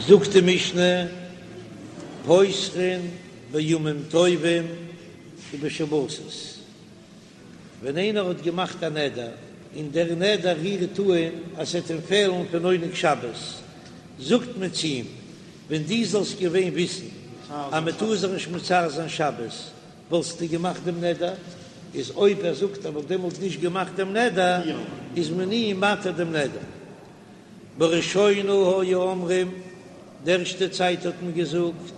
זאגט די משנה, פותחין בימים טובים ובשבתות, ווען איינער האט געמאכט א נדר און דער נדר רירט אן אז ס'עט אים פעלן פון עונג שבת, זאגט מען צו אים, ווען דו זאלסט געווען וויסן אז מען טאר זיך נישט מצער זיין שבת, וואלסטו געמאכט דעם נדר? איז אויב ער זאגט ער וואלט דעמאלט נישט געמאכט דעם נדר, איז מען אים מתיר דעם נדר. בראשונה היו אומרים, די ערשטע צייט האט מען געזאגט,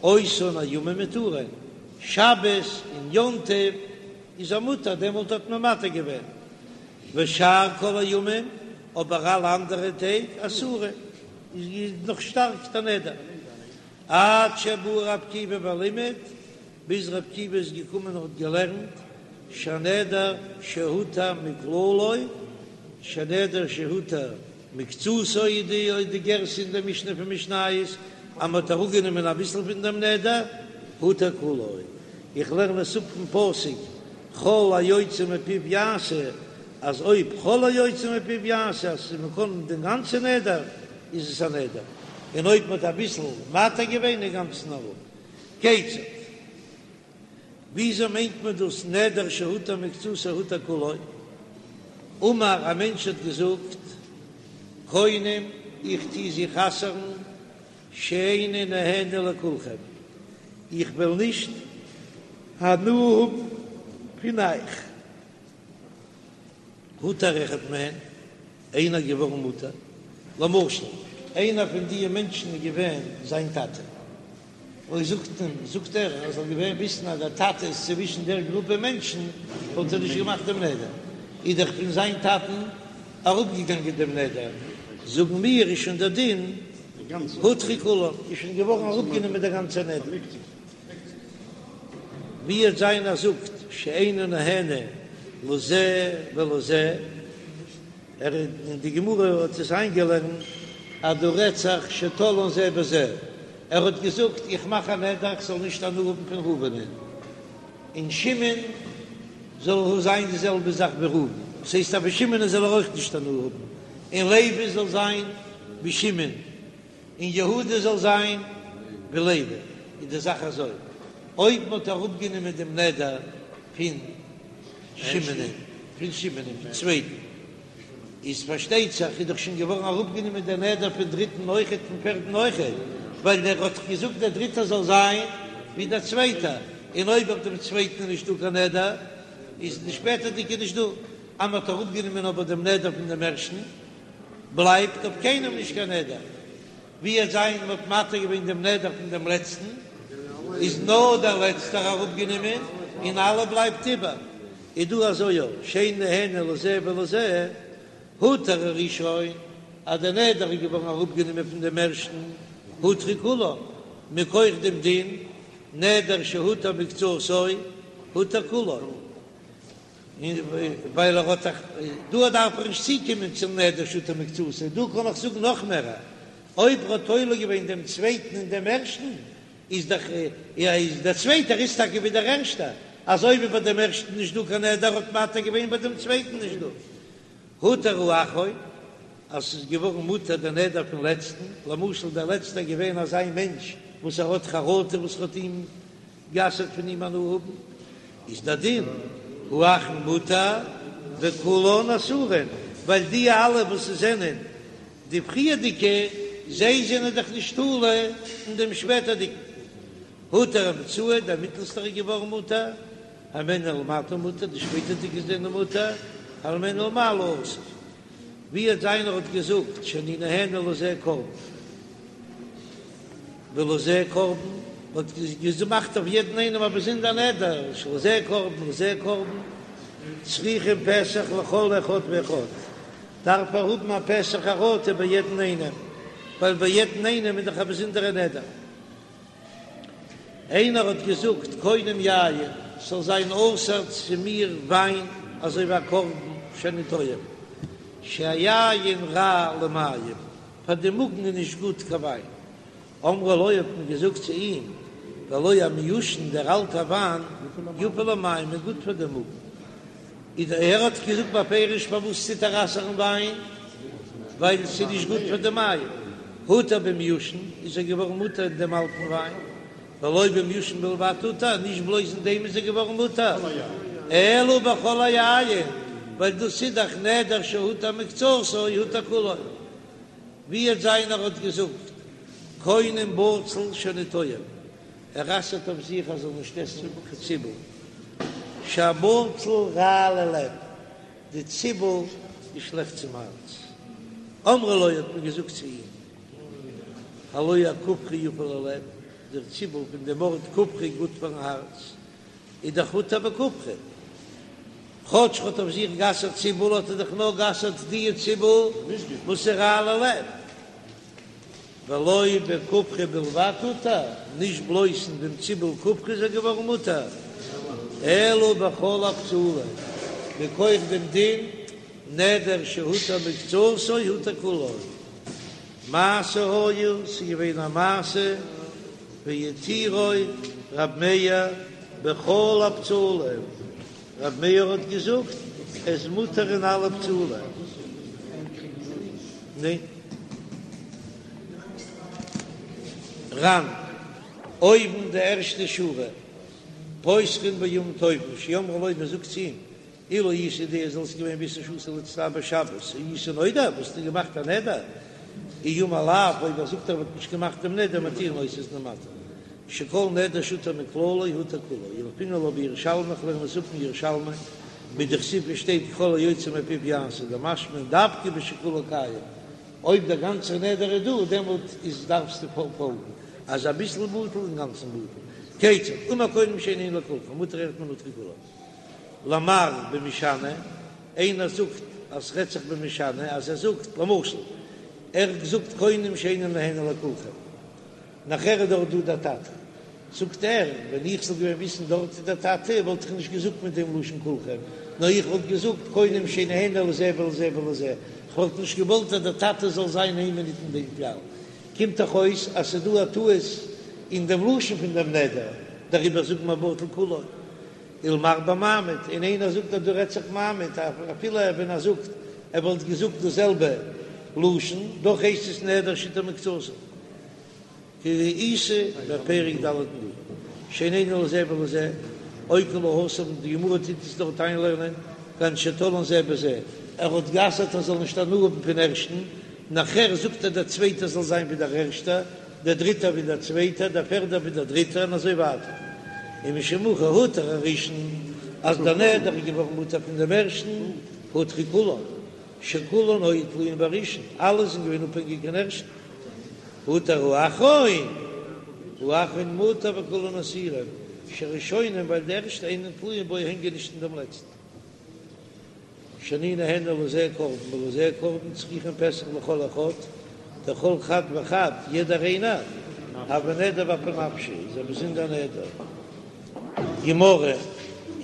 אותן הימים מותרין, שבת און יום טוב איז ער מותר, דעמאלט האט מען מתיר געווען, ושאר כל הימים, אבער אלע אנדערע טעג אסורין, איז נאך שטארק דער נדר. עד שבא ר' עקיבא ולימד, ביז ר' עקיבא איז געקומען און האט געלערנט, שהנדר שהותר מכללו, שהנדר שהותר מקצתו איז די די גירסא אין די משנה פון משניות, אז מען האט אראפגענומען אביסל פון דעם נדר, הותר כולו. איך לערן עס אפ פון פסוק כל היוצא מפיו יעשה, אז אויב כל היוצא מפיו יעשה אז מען קען דעם גאנצן נדר, איז עס א נדר, און אויב מען האט אביסל מתיר געווען אינגאנצן אראפ. כיצד? וויאזוי מיינט מען דאס נדר שהותר מקצתו הותר כולו? אמר, א מענטש האט געזאגט, קונם, איך טו זיך אסר'ן, שאיני נהנה לכולכם, איך וועל נישט הנאה האבן פון אייך. הותר אחד מהן, איינער געווארן מותר, למשל איינער פון דיע מענטשן איז געווען זיין טאטע, אויב זאגט אים, זאגט ער ער זאל געווען וויסן אז דער טאטע איז צווישן דער גרופע מענטשן, וואלט ער נישט געמאכט דעם נדר, איז דאך פון זיין טאטן אראפגעגאנגען דעם נדר, זאגן מיר איז שוין דער דין הותרו כולן, איז שוין געווארן אראפגענומען דער גאנצער נדר. ווי וועט זיין ער זאגט שאינו נהנה לזה ולזה, ער אין די גמרא האט עס איינגעלערנט אז דא רעדט זיך שתלאן זה בזה, ער האט געזאגט איך מאך א נדר איך זאל נישט הנאה האבן פון ראובנ'ען, און שמעון זאל זיין די זעלבע זאך ווי ראובן, דאס הייסט אז פון שמעונ'ען זאל ער אויך נישט הנאה האבן, און לוי זאל זיין ווי שמעון. און יהודה זאל זיין ווי לוי, איז די זאך אזוי, אויב מען האט אראפגענומען דעם נדר פון שמעונ'ען, פון שמעונ'ען, פון צווייטן, איז פארשטייט זיך איז דאך שוין געווארן אראפגענומען דער נדר פון דריטן אויכעט, פון פערטן אויכעט, ווייל דער האט דאך געזאגט דער דריטער זאל זיין ווי דער צווייטער, און אויב אויף דעם צווייטן איז נישטא קיין נדר, איז די שפעטערדיגע נישט דא, אז מען האט אראפגענומען אבער דעם נדר פון דעם ערשטן, בלייבט אויף קיינעם נישט קיין נדר, ווי וועט זיין מ'האט מתיר געווען דעם נדר פון דעם לעצטן, איז נאר דער לעצטער אראפגענומען און אלע בלייבט איבער, איז דא אזוי אויך שאין נהנה לזה ולזה, הותר הראשון, אז דער נדר איז געווארן אראפגענומען פון דעם ערשטן, הותרו כולן, מכח דעם דין נדר שהותר מקצתו הותר כולו. ווייל ער האט דאך, דא דארף איך נישט צוקומען צום נדר שהותר מקצתו, דא קען איך זאגן נאך מער, אויב ער האט תולה געווען דעם צווייטן אין דעם ערשטן, איז דאך איז דער צווייטער איז טאקע ווי דער ערשטער, אזוי ווי ביי דעם ערשטן נישט דא קיין נדר האט מתיר געווען ביי דעם צווייטן נישט דא. הותר האחרון, אז ס'איז געווארן מותר דער נדר פון לעצטן, למשל דער לעצטער איז געווען אזא מענטש וואס ער האט חרטה וואס ער האט אים גע'אסר'ט פון אים הנאה האבן, איז דער דין האחרון מותר וכולן אסורין, ווייל די אלע וואס זענען די פריערדיגע, זיי זענען דאך נישט תלוי אין דעם שפעטערדיגן. הותר האמצעי, דער מיטלסטער איז געווארן מותר, הימנו ולמטה מותר, די שפעטערדיגע זענען מותר, הימנו ולמעלה אסור. ווי וועט זיין ער האט געזאגט שאני נהנה לזה קרבן. ולזה קרבן, האט געמאכט אויף יעדן איינעם א באזונדער נדר, שלזה קרבן ולזה קרבן, צריכין פתח לכל אחד ואחד, דארף ער האבן א פתח חרטה ביי יעדן איינעם, ווייל ביי יעדן איינעם איז דאך א באזונדערע נדר. איינער האט געזאגט קונם יין, ס'זאל זיין אסור צו מיר וויין אזוי ווי א קרבן שאני טועם, שהיין רע למעיים, פאר די מאגן איז נישט גוט קיין וויין. אמרו לו האט מען געזאגט צו אים, והלא המיושן דער אלטער וויין יפה למעיים איז גוט פאר די מאגן. איז ער האט געזאגט בפירוש פארוואס טוט ער אסר'ן וויין, ווייל ס'איז נישט גוט פאר די מעיים. הותר במיושן, איז ער געווארן מותר אין דעם אלטן וויין, ולא במיושן בלבד הותר, נישט בלויז אין דעם איז ער געווארן מותר, אלא בכל היין, ווייל דאס איז דאך נדר שהותר מקצתו הותר כולו. ווי וועט זיין ער האט געזאגט קונם בצל שאני טועם, ער אסר'ט אויף זיך ער זאל נישט עסן קיין ציבל, שהבצל רע ללב, די ציבל איז שלעכט צום הארץ. אמרו לו האט מען געזאגט צו אים, הלא הכופרי יפה ללב, דער ציבל פון דעם ארט כופרי גוט פארן הארץ, איז דאך הותר בכופרי, כאטש ער האט אויף זיך גע'אסר'ט ציבל האט ער דאך נאר גע'אסר'ט די ציבל וואס איז רע ללב. ולא בכופרי בלבד הותר, נישט בלויז אין דעם ציבל כופרי איז ער געווארן מותר, אלא בכל הבצלים, מכח דעם דין נדר שהותר מקצתו הותר כולו. מעשה היה, ס'איז געווען א מעשה, והתירו רב מאיר בכל הבצלים, רב מאיר האט געזאגט עס איז מותר אין אלע בצלים. ניין. ר"ן, אויבן די ערשטע שורה, פותחין בימים טובים, שאמרו לו, מען זאגט צו אים, אילו היית יודע זאלסט געווען וויסן שאסור להצטער בשבת, היית נודר, וואלסטו געמאכט א נדר, אי אמר לאו, אויב ער זאגט ער וואלט נישט געמאכט דעם נדר, מתירין אותו איז מען מתיר, שכל נדר שהותר מכללו הותר כולו, ילפינן לה בירושלמי, איך לערן עס אפ אין ירושלמי, מדכתיב ווי שטייט ככל היוצא מפיו יעשה, דמשמע דווקא בשכולו קיים, אויב דער גאנצער נדר איז דא דעמאלט איז דארפסטו פאלגן, אז אביסל בטל אינגאנצן בטל, כיצד, אמר קונם שאיני נהנה לכולכם, מותר אחד מהן הותרו כולן. למר במשנה, איינער זאגט אז ס'רעדט זיך במשנה אז ער זאגט למשל ער האט געזאגט קונם שאיני נהנה לכולכם, נאכער איז דארט דא דער טאטע, זאגט ער ווען איך זאל געווען וויסן דארט איז דער טאטע וואלט איך נישט געזאגט מיט דעם לשון כולכם, נאר איך וואלט געזאגט קונם שאיני נהנה לזה ולזה ולזה, כ'וואלט נישט געוואלט אז דער טאטע זאל זיין איין מינוט אין דעם כלל. קומט דאך אויס אז ס'איז דא א טעות אין דעם לשון פון דעם נדר, דעריבער זאגט מען בטל כולו. ולמר במעמיד, און איינער זאגט אז דא רעדט זיך מעמיד, אפילו ווען ער זאגט ער וואלט געזאגט דאס זעלבע לשון, דאך הייסט עס נדר שהותר מקצתו. כדאיתא בפרק ד' נדרים, שאיני נהנה לזה ולזה, אוקי לה התם, די גמרא טוט עס דארט איינלערנען, כגון שתלאן זה בזה, ער האט גע'אסר'ט ער זאל נישט הנאה האבן פון ערשטן, נאכער זאגט ער דער צווייטער זאל זיין ווי דער ערשטער, דער דריטער ווי דער צווייטער, דער פערדער ווי דער דריטער, און אזוי ווייטער. ומשום הכי הותר הראשון, אז דער נדר איז געווארן מותר פון דעם ערשטן, הותרו כולן, שכולן היו תלויין בראשון, אלע זענען געווען אפהענגיק אין ערשטן. הותר האחרון, האחרון מותר וכולן אסורין, שהראשונים ווייל די ערשטע אינן תלויין בו הענגען נישט אין דעם לעצטן. שאני נהנה לזה קרבן ולזה קרבן צריכין פתח לכל אחד, דכל חד וחד, יעדער איינער, הוי נדר באפי נפשיה, איז א באזונדער נדר. גמרא,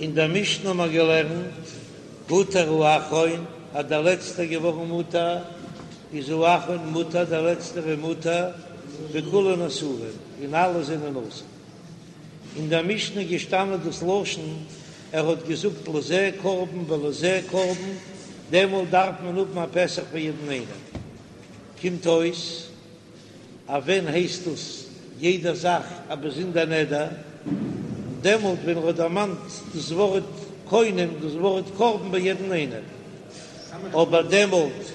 אין דער משנה האבן מיר געלערנט, הותר האחרון, אז דער לעצטער געווארן מותר, איז האחרון מותר, דער לעצטער איז מותר, וכולן אסורין, און אלע זענען אסור. אין דער משנה איז געשטאנען דאס לשון, ער האט געזאגט לזה קרבן ולזה קרבן, דעמאלט דארף מען האבן א פתח פאר יעדן איינעם. קומט אויס אז ווען הייסט דאס יעדע זאך א באזונדער נדר? דעמאלט ווען ער האט דערמאנט דאס ווארט קונם, דאס ווארט קרבן ביי יעדן איינעם. אבער דעמאלט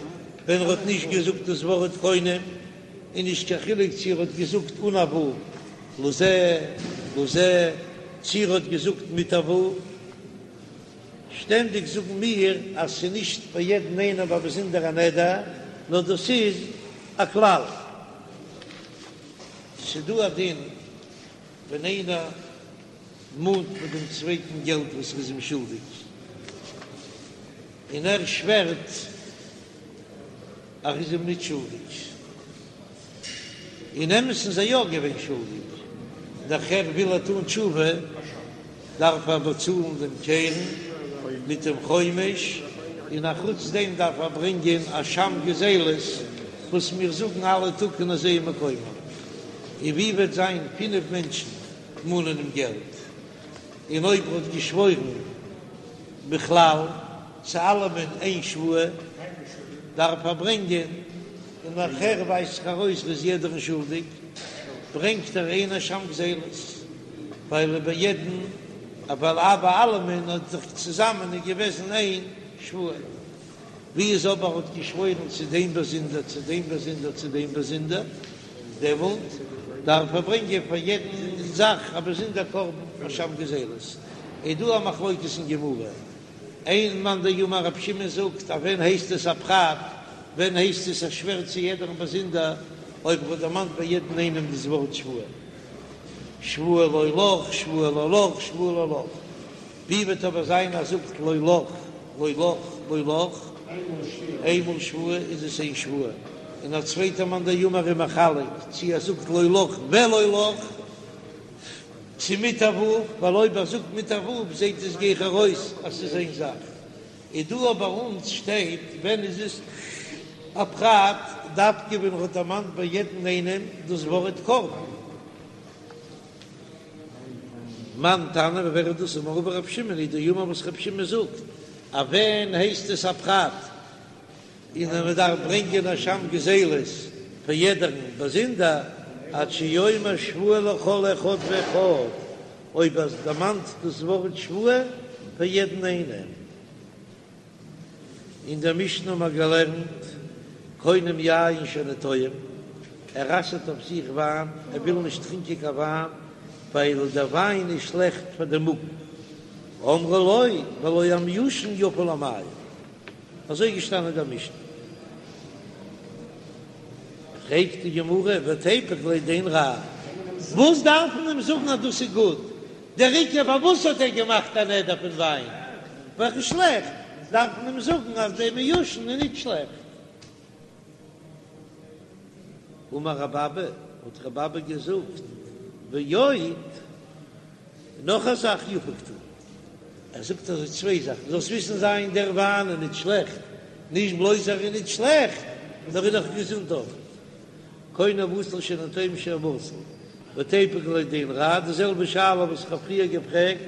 ווען ער האט נישט געזאגט דאס ווארט קונם, איז נישט קיין חילוק צו ער האט געזאגט אן א ו' לזה לזה, צו ער האט געזאגט מיט א ו'. שטענדיג זאגן מיר אז ס'איז נישט ביי יעדן איינעם א באזונדערע נדר, נאר דאס איז א כלל. ס'דא א דין ווען איינער מאנט פון דעם צווייטן געלט וואס ער איז אים שולדיג, און ער שווערט אז ער איז אים ניט שולדיג. אין אמת'ן איז ער יא געווען שולדיג, נאכער וויל ער טון תשובה, דארף ער באצאלן דעם קרן מיט דעם חומש, און א חוץ דעם דארף ער ברענגען אשם גזילות וואס מיר זאגן אלע טאג אין איזהו מקומן. און ווי וועט זיין פינף מענטשן מאנען אים געלט, און אויב ער האט געשוואוירן בכלל צו אלעמען איין שבועה, דארף ער ברענגען. און נאכהער ווייזט זיך ארויס ער איז יעדערן שולדיג, ברענגט ער איין אשם גזילות, ווייל ביי יעדן, ווייל ביי אלעמען האט זיך צוזאמען איז געוועזן איין שבועה. ווי איז אבער האט געשוואוירן צו דעם באזונדער, צו דעם באזונדער, צו דעם באזונדער, דעמאלט דארף ער ברענגען פאר יעדן זאך א באזונדער קרבן אשם גזילות. איז דא א מחלוקת אין גמרא, איין מאן דאמר רב שמעון זאגט אז ווען הייסט עס א פרט, ווען הייסט עס ער שווערט צו יעדערן באזונדער, אויב ער האט דערמאנט ביי יעדן איינעם דאס ווארט שבועה, שבועה לא לך, שבועה לא לך, שבועה לא לך. ווי וועט אבער זיין אז זאגט לא לך, לא לך, לא לך, איינמאל שבועה איז עס איין שבועה, און א צווייטער מאן דאמר איז מחלק צי ער זאגט לא לך ולא לך, צו מיט א ו', ווייל אויב ער זאגט מיט א ו' זעט עס גיכער אויס אז ס'איז איין זאך. איז דא אבער אונז שטייט ווען איז עס א פרט דווקא ווען ער האט דערמאנט ביי יעדן איינעם דאס ווארט קרבן. מאן תנא ווער איז דאס אמר רבא רב שמעון היא דאמר וואס רב שמעון זאגט אז ווען הייסט עס א פרט און אז מען דארף ברענגען אשם גזילות פאר יעדערן באזונדער עד שיאמר שבועה לכל אחד ואחד אויב ער דערמאנט דאס ווארט שבועה פאר יעדן איינעם. אין דער משנה האבן מיר געלערנט, קונם יין שאינו טועם, ער אסר'ט אויף זיך וויין, ער וויל נישט טרינקען קיין וויין, ווייל דער וויין איז שלעכט פאר דעם מאגן. אמרו לו, והלא המיושן יפה למעיים. אזוי איז געשטאנען אין דער משנה. פרעגט די גמרא, ותיפוק ליה דאין רע, וואס דארף מען אים זאגן אז דאס איז גוט? דער עיקר פארוואס האט ער געמאכט א נדר פון וויין וועלכע איז שלעכט, דארף מען אים זאגן אז דער מיושן איז נישט שלעכט. אמר רב אבא, האט רב אבא געזאגט, ועוד, נאך א זאך יפה קתני, ער זאגט אזוי צוויי זאכן, זאלסט וויסן זיין דער וויין איז נישט שלעכט, נישט בלויז ער איז נישט שלעכט, נאר איז נאך געזונט אויך. קונם בצל שאינו טועם שהוא בצל, ותיפוק ליה דאין רע, די זעלבע שאלה וואס איך האב פריער געפרעגט,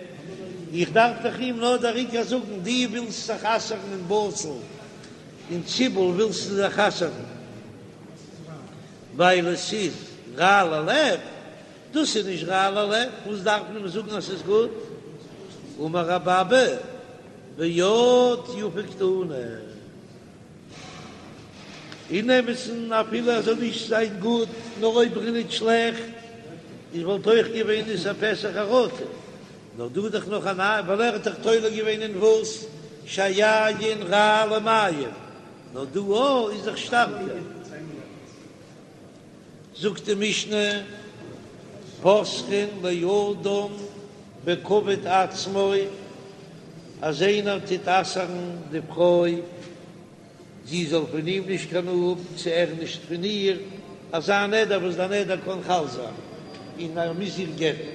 איך דארף דאך אים נאר דער עיקר זאגן, דו ווילסט זיך אסר'ן אין בצל און ציבל ווילסטו זיך אסר'ן ווייל עס איז רע ללב, דאס איז נישט רע ללב, וואס דארף מען אים זאגן אז ס'איז גוט? אמר רב אבא, ועוד יפה קתני. אין אמת'ן אפילו ער זאל נישט זיין גוט, נאר אויב ער איז נישט שלעכט, איז וואלט אויך געווען איסור פתח חרטה. נאר דא איז דאך נאך א נייע, ווייל ער האט דאך תולה געווען אין וואס? שהיין רע למעיים, נאר דא אויך איז דאך שטארקער. זאגט די משנה, פותחין לאדם בכבוד עצמו, אז איינער טוט אסר'ן די פרוי, זי זאל פון אים נישט קיין הנאה האבן, צו ער נישט פון איר, אזא נדר וואס דער נדר קען חל זיין, און ער מוז איר גט'ן,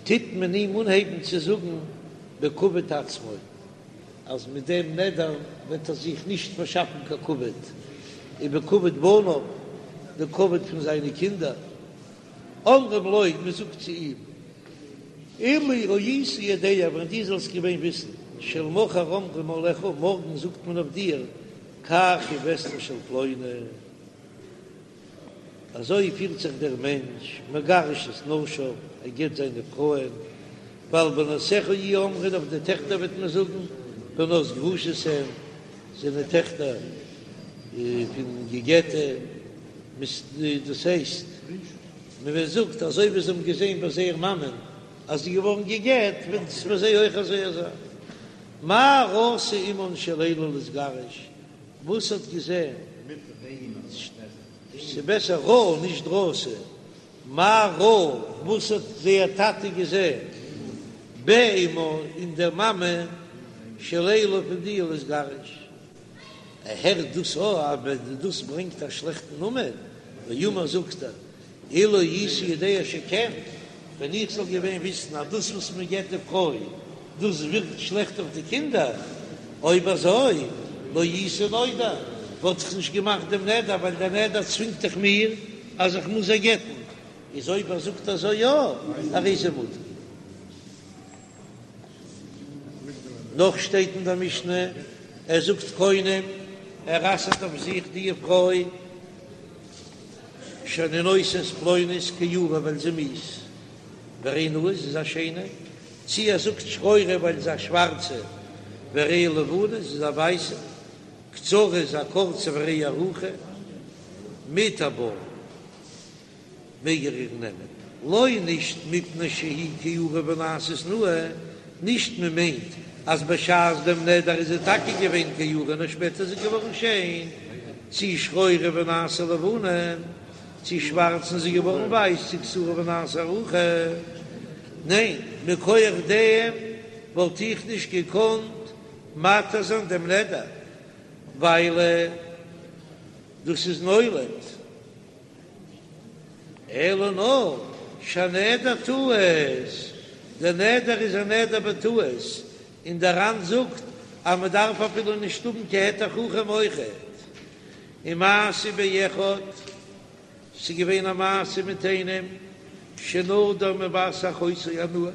טוט מען אים אנהייבן צו זאגן בכבוד עצמו. אז מיט דעם נדר וועט ער זיך נישט פארשאפן קיין כבוד, ובכבוד בניו, די כבוד פון זיינע קינדער. אומרים לו, מען זאגט צו אים, אילו היית יודע, ווען דו זאלסט געווען וויסן, שלמחר אומרים עליך, מארגן זאגט מען אויף דיר, כך היא וסתו של פלוני. אזוי פירט זיך דער מענטש, מגרש את נשיו, ער גט זיינע פרויען, ועל בנותיך יהיו אומרים, אויף די טעכטער וועט מען זאגן, בנות גרושות הן, זענען טעכטער פון געגעטע, דאס הייסט, מען זאגט אזוי ווי זיי האבן געזען ביי זייער מאמען אז זי איז געווארן געגעט, וועט עס ביי זיי אויך אזוי זיין. מה ראתה אמן של אלו להתגרש, וואס האט געזען? ס'בעסער ראה נישט ראתה. מה ראה, וואס האט זייער טאטע געזען? באמן אין דער מאמע של אלו פון די להתגרש. ער הערט דאס אויך אז דאס ברענגט א שלעכטן נאמען, ואמר זאגט ער, אילו הייתי יודע שכן, ווען איך זאל געווען וויסן אז דאס וואס מען גט די פרוי, דאס ווירקט שלעכט אויף די קינדער, אויב אזוי, לא הייתי נודר, וואלט איך נישט געמאכט דעם נדר, ווייל דער נדר צווינגט דאך מיר אז איך מוז זיי גט'ן, איז אויב ער זאגט אזוי יא, הרי זה מותר. נאך שטייט אין דער משנה, ער זאגט קונם. ער אסר'ט אויף זיך די פרוי שאני נושא את פלונית כעורה ווייל זי מיאוס, והרי נאה זי איז א שיינע, צי ער זאגט שחורה ווייל זי איז א שווארצע, והרי לבנה זי איז א ווייסע, קצרה איז א קורצע והרי ארוכה, מותר בה. מעג ער איר נעמען, לא נישט מפני שהיא כעורה ונעשית נאה, נישט מען מיינט אז בשעת דעם נדר איז זי טאקע געווען כעורה נאר שפעטער איז זי געווארן שיין, צי שחורה ונעשה לבנה, צי שווארץ און זי איז געווארן ווייס, צי קצרה ונעשה ארוכה, ניין, מכח דעם וואלט איך נישט געקאנט מתיר זיין דעם נדר, ווייל דאס איז נולד. אלא נאר שהנדר טעות, דער נדר איז א נדר בטעות, און דער ר"ן זאגט אז מען דארף אפילו נישט האבן קיין היתר חכם אויכעט. ומעשה באחד, ס'איז געווען א מעשה מיט איינעם שנדר מבת אחותו הנאה,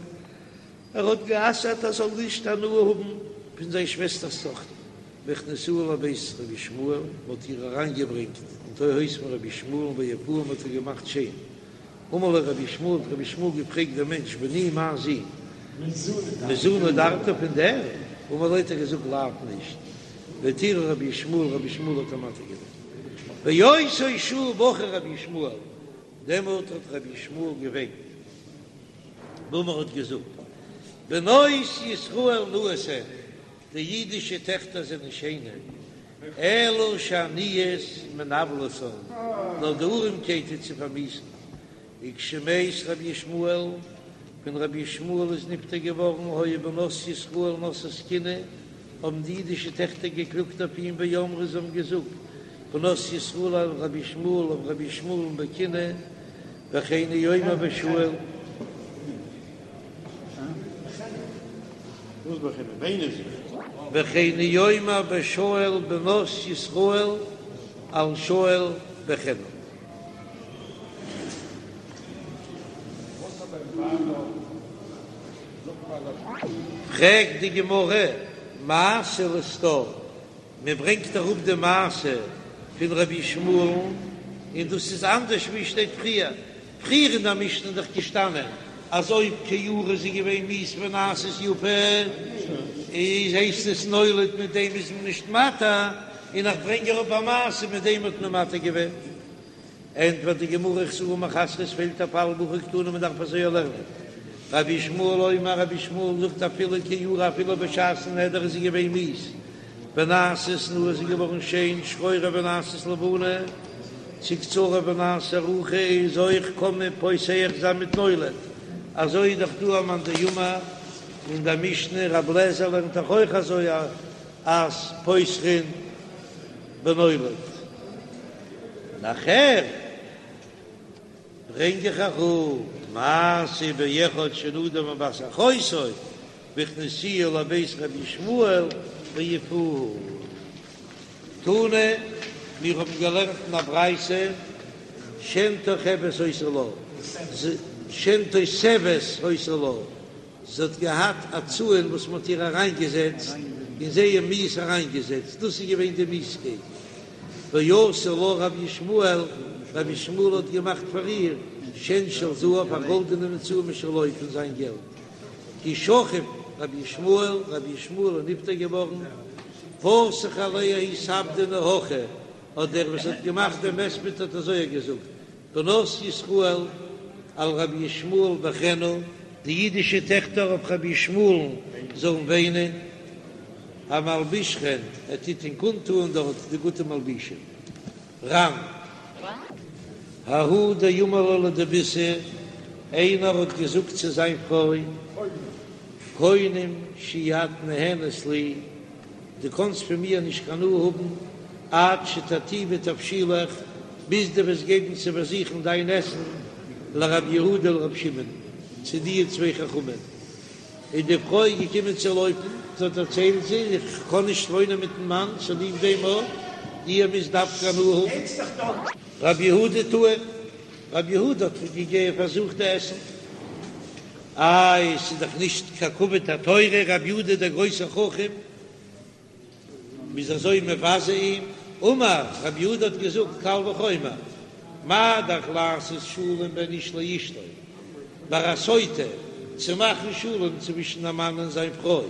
ער האט גע'אסר'ט ער זאל נישט הנאה האבן פון זיין שוועסטער'ס טאכטער, והכניסוה לבית רבי ישמעאל, מען האט איר אריינגעברענגט אין די הויז פון רבי ישמעאל ויפוה מען האט איר געמאכט שיין. אמר לו רבי ישמעאל, האט רבי ישמעאל געפרעגט דעם מענטש, בני מיין זון, מזו נדרת פון דער? אמר לו האט ער געזאגט לאו נישט, והתירה רבי ישמעאל, רבי ישמעאל האט אים מתיר געווען. באותה שעה בכה רבי ישמעאל, דעמאלט האט רבי ישמעאל געוויינט. ואמר האט געזאגט, בנות ישראל נאות הן, די אידישע טעכטער זענען שיינע, אלא שהעניות מנוולתן, נאר די ארעמקייט טוט זיי פארמיאוסן. וכשמת רבי ישמעאל, ווען רבי ישמעאל איז נפטר געווארן, היו בנות ישראל נושאות קינה, האבן די אידישע טעכטער געקלאגט אויף אים ואמרו, זיי האבן געזאגט, בנות ישראל על רבי ישמעאל, אויף רבי ישמעאל'ן בקינה, וכן הוא אומר בשאול. וכן הוא אומר בשאול בנות ישראל על שאול בכנה. פרעגט די גמרא, מעשה לסתור, מען ברענגט אראפ די מעשה פון רבי ישמעאל'ן, און דאס איז אנדערש ווי שטייט פריער, פריער אין דער משנה איז דאך געשטאנען אז אויב כעורה איז זי געווען מיאוס ונעשית יפה, איז הייסט עס נולד מיט דעם איז מען נישט מתיר, און איך ברענג אראפ א מעשה מיט דעם האט מען מתיר געווען. ענטפערט די גמרא חסורי מחסרא עס פעלט א פאל והכי קתני מען דארף אזוי לערנען. רבי ישמעאל אומר רבי ישמעאל זאגט אפילו כעורה אפילו בשעת'ן נדר איז זי געווען מיאוס ונעשית נאה איז זי געווארן שיין שחורה ונעשית לבנה צי קצרה ונעשית ארוכה איז אויך קען מען פותח זיין מיט נולד אזוי איז דאך דא א מאן דאמר אין דער משנה רבי אליעזר לערנט דאך אויך אזוי אז פותחין בנולד. נאכער ברענג איך אראפ מעשה באחד שנדר מבת אחותו והכניסוה לבית רבי ישמעאל ויפוה. תנא, מיר האבן געלערנט אין א ברייתא שן תוחבת היתה לה, שן תותבת היתה לה, זי האט געהאט א צאן וואס מען האט איר אריינגעזעצט און זייער מיאוס אריינגעזעצט, דאס איז געווען די מיאוסקייט. ועשה לה רבי ישמעאל, רבי ישמעאל האט געמאכט פאר איר שן של זהב, א גאלדענעם צאן משלו פון זיין געלט. כי שכיב רבי ישמעאל, רבי ישמעאל איז נפטר געווארן, פתח עליה ההוא ספדנא הכי, האט דער וואס האט געמאכט דעם הספד האט אזוי געזאגט, בנות ישראל על רבי ישמעאל בכינה, די אידישע טעכטער אויף רבי ישמעאל'ן זאלן וויינען, המלבישכן, ער טוט ענק אנטוען דארט די גוטע מלבישים. ר"ן. ההוא דאמר לה לדביתהו, איינער האט געזאגט צו זיין פרוי, קונם שאי את נהנית לי, דו קאנסט פון מיר נישט קיין הנאה האבן עד שתטעימי תבשילך, ביז דו וועסט געבן צו פארזוכן דיין עסן לרבי יהודה ולרבי שמעון, צו די צוויי חכמים. איז די פרוי געקומען צו לויפן, זי האט דערציילט זי, איך קען נישט וואוינען מיטן מאן צוליב דעם אויך, איר מוזט דווקא הנאה האבן. רבי יהודה טעים, רבי יהודה האט געגעבן פארזוכט די עסן. איי, ס'איז דאך נישט קיין כבוד התורה, רבי יהודה דער גרויסער חכם, מ'איז אזוי מבזה אים. אמר רב יהודה האט געזאגט קל וחומר, מה דאך לעשות שלום בין איש לאשתו, ביי א סוטה צו מאכן שלום צווישן א מאן און זיין פרוי,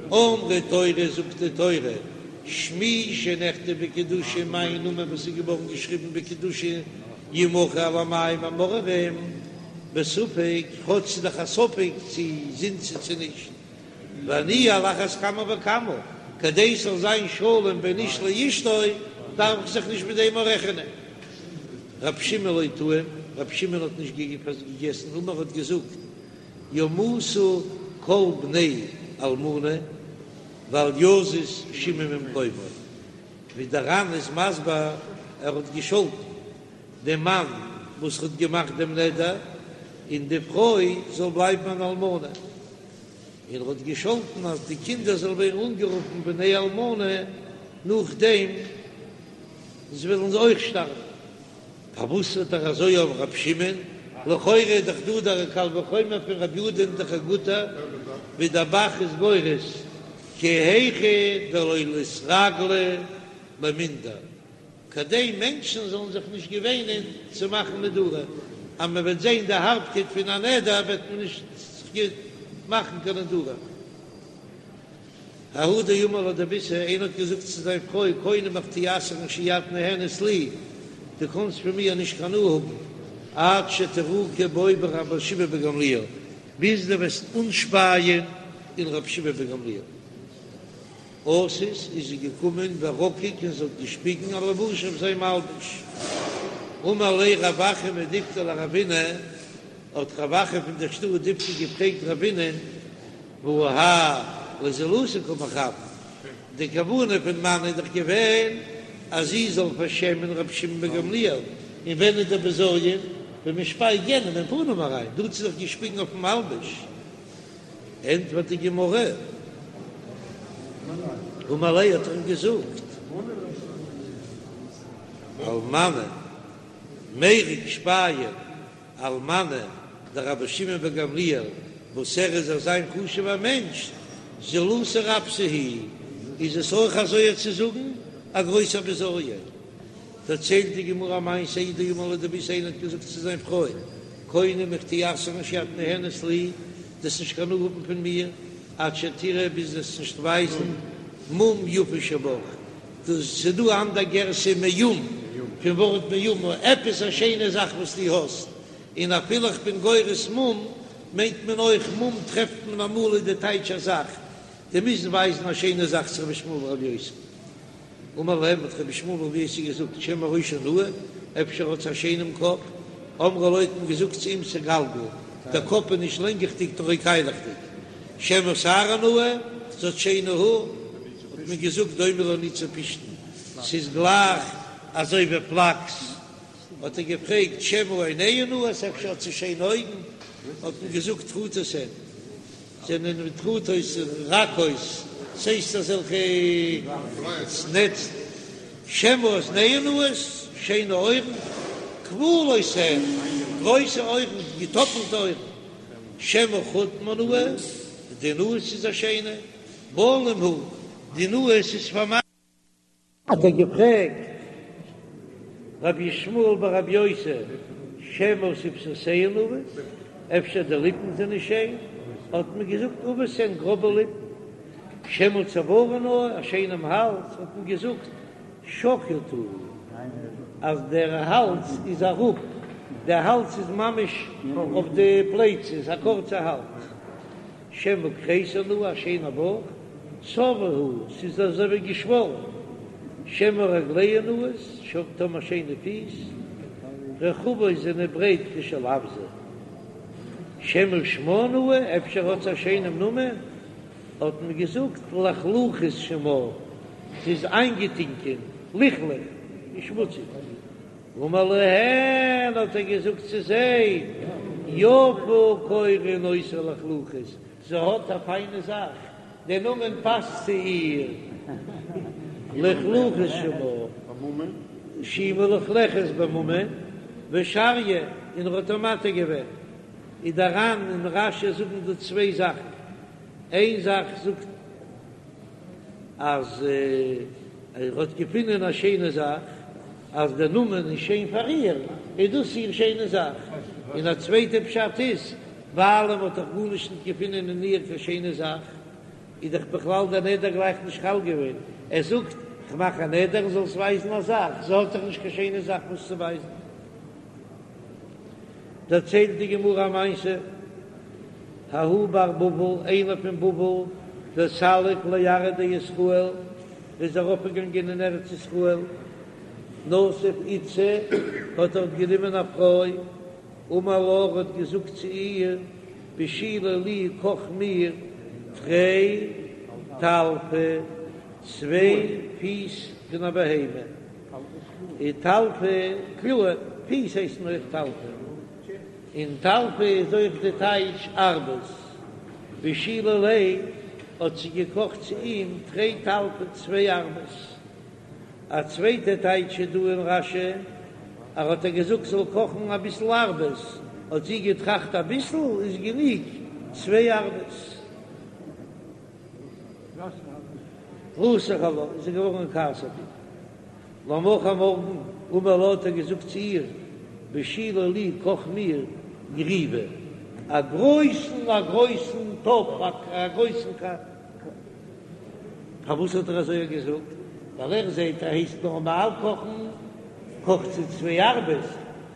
אמרה תורה זאגט די תורה, שמי שנכתב בקדושה מיין נאמען וואס איז געווארן געשריבן בקדושה ימחה על המים המאררים, בספק, כאטש ס'איז דאך א ספק צו זינתה צו נישט. ואני על אחת כמה וכמה, כדי ס'זאל זיין שלום בין איש לאשתו, דארף איך זיך נישט מיט דעם רעכענען. רב שמעון לא טעים, רב שמעון האט נישט געגעסן, אמר האט געזאגט, ימותו כל בני אלמנה ואל יזוז שמעון ממקומו, ווי דער ר"ן איז מסביר, ער האט געשאלטן דעם מאן וואס האט געמאכט דעם נדר, און די פרוי זאל בלייבן אן אלמנה. און ער האט געשאלטן אז די קינדער זאלן ווערן אנגערופן בני אלמנה נאכדעם זיי וועלן אויך שטארבן. פארוואס האט ער אזוי אויף ר' שמעון? לכאורה איז דאך דא דער קל וחומר פון רבי יהודה איז דאך א גוטער, ווי דער ב"ח איז גורס כי היכי דלא ליתרגלו למינדר. כדי מענטשן זאלן זיך נישט געוואינען צו מאכן נדרים, אז מען וועט זען די הארבקייט פון א נדר וועט מען נישט זיך מאכן קיין נדרים. ההוא דאמר לה דביתהו, איינער האט געזאגט צו זיין פרוי, קונם איך טו אסר'ן שאי את נהנית לי, דו קאנסט פון מיר נישט קיין הנאה האבן, עד שתרוקי בו ברבי שמעון בן גמליאל, ביז דו וועסט אנשפייען אין רבי שמעון בן גמליאל. אתת איז זי געקומען ורקק און זי האט געשפיגן על לבושיה אויף זיין מלבוש. אמר ליה רב אחא מדיפתי לרבינא, האט רב אחא פון דער שטאט דיפתי געפרעגט רבינא'ן, והא האי לזילותא קא מכוון, די כוונה פון מאן איז דאך געווען אז זי זאל פארשעמען רבי שמעון בן גמליאל, און ווען איז דער בזיון? ווען מען שפייט יענעם אין פנים אריין, דא האט זי דאך געשפיגן אויפן מלבוש. ענטפערט די גמרא, אמר ליה האט ער אים געזאגט, על מנא מירק שפייען על מנא דרבי שמעון בן גמליאל וואס ער איז אזא חשוב'ער מענטש, זילותא רבתא היא, איז עס אויך אזוי צו זאגן א גרויסער בזיון. דערציילט די גמרא א מעשה ההוא דאמר לה דביתהו איינער האט געזאגט צו זיין פרוי, קונם איך טו אסר'ן שאי את נהנית לי, דו'סט נישט קיין הנאה האבן פון מיר, עד שתראי ביז דו'סט נישט ווייזן מום יפה שבך, דאס ס'איז דא אנדער גירסא מאום, פון ווארט מאומה, עפעס א שיינע זאך וואס דו האסט, און אפילו איך בין גורס מום, מיינט מען אויך מום טרעפט מען אמאל איז די טייטש א זאך, דו מוזט ווייזן א שיינע זאך צו רבי ישמעאל ברבי יוסי. אמר להם, האט רבי ישמעאל ברבי יוסי געזאגט, שמא ראשה נאה, אפשר האט זי א שיינעם קאפ, אמרו לו האט מען געזאגט צו אים סגלגל, דער קאפ איז נישט לענגעכדיג נאר קיילעכדיג, שמא שערה נאה, זי האט שיינע האר, האט מען געזאגט דומה לניצי פשתן, ס'איז גלייך אזוי ווי פלאקס, האט ער געפרעגט שמא עיניה נאות, אפשר האט זי שיינע אויגן, האט מען געזאגט טרוטות הן. זענען טרוטות רכות, ס'הייסט אזעלכע נעצן, שמא אזניה נאות, שיינע אויערן, כפולות הן, גרויסע אויערן, געטאפלטע אויערן, שמא חוטמה נאה, די נאז איז א שיינע, בלום הוא, די נאז איז פארמאכט. האט ער געפרעגט רבי ישמעאל ברבי יוסי שמא שפתותיה נאות, אפשר די ליפן זענען שיין, האט מען געזאגט עבות הן גראבע ליפן, שמא צוארה נאה, א שיינעם האלז, האט מען געזאגט שקוט הוא, אז דער האלז איז אראפ, דער האלז איז ממש אויף די פלייצעס, א קורצע האלז. שמא כריסה נאה, א שיינע בויך, צבה הוא, ס'איז אזוי ווי געשוואלן, שמא רגליה נאות, טאמער שיינע פיס, רחבות זענען ברייט כשל אווזא, שמא שמה נאה, אפשר האט זי א שיינעם נאמען, האט מען געזאגט לחלוחית שמה, ס'איז איינגעטינקען, לכלוך, און שמוציג. אמר להן, האט ער געזאגט צו זיי, יפה קורין אותה לחלוחית, זי האט א פיינע זאך, דער נאמען פאסט צו איר, לחלוחית שמה, שהיא מלוכלכת בממון, ושריא, און ער האט איר מתיר געווען. איז דער ר"ן און רש"י זאגן דא צוויי זאכן, איין זאך זאגט אז. ער האט געפונען א שיינע זאך, אז דער נאמען איז שיין פאר איר, איז דאס איר שיינע זאך. און א צווייטע פשט איז, ווייל ער האט דאך גארנישט נישט געפונען אין איר קיין שיינע זאך, איז דאך בכלל דער נדר גלייך נישט חל געווען. ער זאגט, כ'מאך א נדר זאלסט ווייזן א זאך, זי האט דאך נישט קיין שיינע זאך וואס צו ווייזן. דערציילט די גמרא א מעשה, ההוא בר בבל, איינער פון בבל, דסליק לארעא דישראל, איז ארויפגעגאנגען אין ארץ ישראל, נסיב איתתא, האט דארט גענומען א פרוי, אמר לה, האט געזאגט צו איר, בשילי לי, קאך מיר תרי טלפי, צוויי פיס פון א בהמה. און טלפי קלאר, פיס הייסן אויך טלפי, און טלפי איז אויך די טייטש ארבעס. בשילה ליה האט זי געקאכט צו אים תרי טלפי צוויי ארבעס. א צווייטע טייטש איז דא אין רש"י, ער האט איר געזאגט זאל קאכן אביסל ארבעס, האט זי געטראכט אביסל איז גענוג צוויי ארבעס. רתח עלה, איז ער געווארן אין כעס אויף איר. למחר מארגן, אמר לה האט ער געזאגט צו איר, בשילי לי קאך מיר גריוא, א גרויסן א גרויסן טאפ, א גרויסן ק. פארוואס האט ער אזוי געזאגט? ווייל ער זעט ער הייסט נארמאל קאכן, קאכט זי צוויי ארבעס,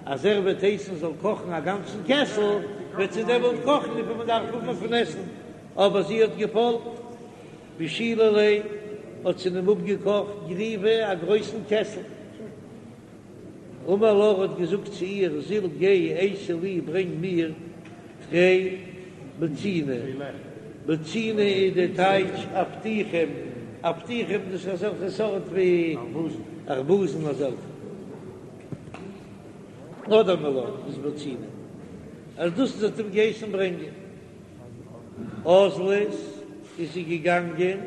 אז ער וועט הייסן זאל קאכן א גאנצן קעסל, וועט זי דעמאלט קאכן וויפיל מען דארף האבן פון עסן. אבער זי האט געפאלגט. בשילה ליה, האט זי אים אפגעקאכט גריוא א גרויסן קעסל. אמר לה האט געזאגט צו איר, זיל גיי אייתי לי ברענג מיר תרי בוציני, בוציני איז די טייטש אבטיחים, אבטיחים דאס איז אזעלכע סארט ווי ארבוזן אזעלכע, אדער מעלאן איז בוציני, אז דאס האט אים געהייסן ברענגען. אזלת איז זי געגאנגען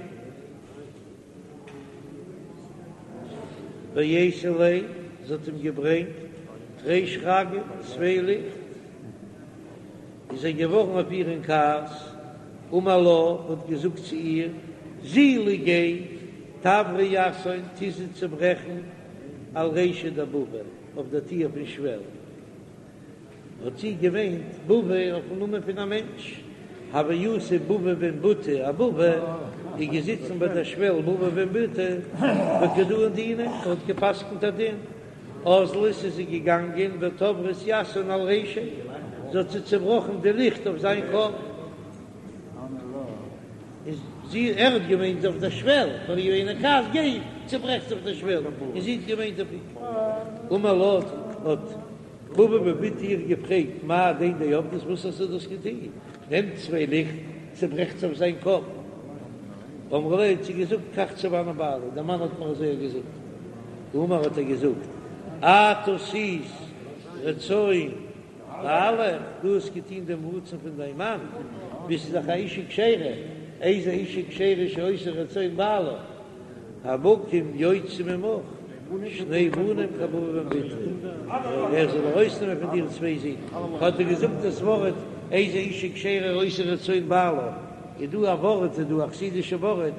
ואייתא ליה, זי האט אים געברענגט תרי שרגי, צוויי ליכט, איז ער געווארן אויף איר אין כעס, אמר לה, האט געזאגט צו איר, זילי גיי, תברי יתהון, טו זיי צעברעכן על רישיה דבבא, אויף דער טיר פון שוועל. האט זי געמיינט בבא אויפן נאמען פון א מענטש, הוה יתיב בבא בן בוטא אבבא, איז געזיצן ביי דער שוועל בבא בן בוטא וקא דאין דינא, ער האט געפסקנט א דין, אזלת איז זי געגאנגען ותברת יתהון על רישיה, זי האט זיי צעבראכן די ליכט אויף זיין קאפ. איז זי, ער האט געמיינט אויף דער שוועל, פאר איר אין כעס, גיי צעברעך זיי אויף דער שוועל, און זי האט געמיינט אויף אים. אמר לה, האט בבא בן בוטא איר געפרעגט, מאי הדין דעבדת, וואס האסטו דאס געטון? נעמט צוויי ליכט, צעברעכט זיי אויף זיין קאפ. אמרה ליה, האט זי געזאגט, כך צוני בעלי, דער מאן האט מיר אזוי געזאגט. אמר האט ער געזאגט, את עשית רצון בעלך, דו האסט געטון דעם רצון פון דיין מאן, ביסט דאך א אישה כשרה, איזו אישה כשרה שעושה רצון בעלה, המקום יוציא ממך שני בנים כבבא בן בוטא, ער זאל ארויסנעמען פון דיר צוויי זין, האט ער געזאגט דאס ווארט איזו אישה כשרה עושה רצון בעלה, איז דא א ווארט, איז דא א חסידישע ווארט,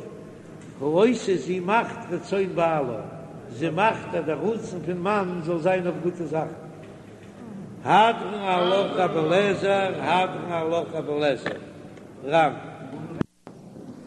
העושה זי מאכט רצון בעלה, זי מאכט אז דער רצון פון מאן זאל זיין אויף גוטע זאכן. הדרן עלך רבי אליעזר, הדרן עלך רבי אליעזר, רמ.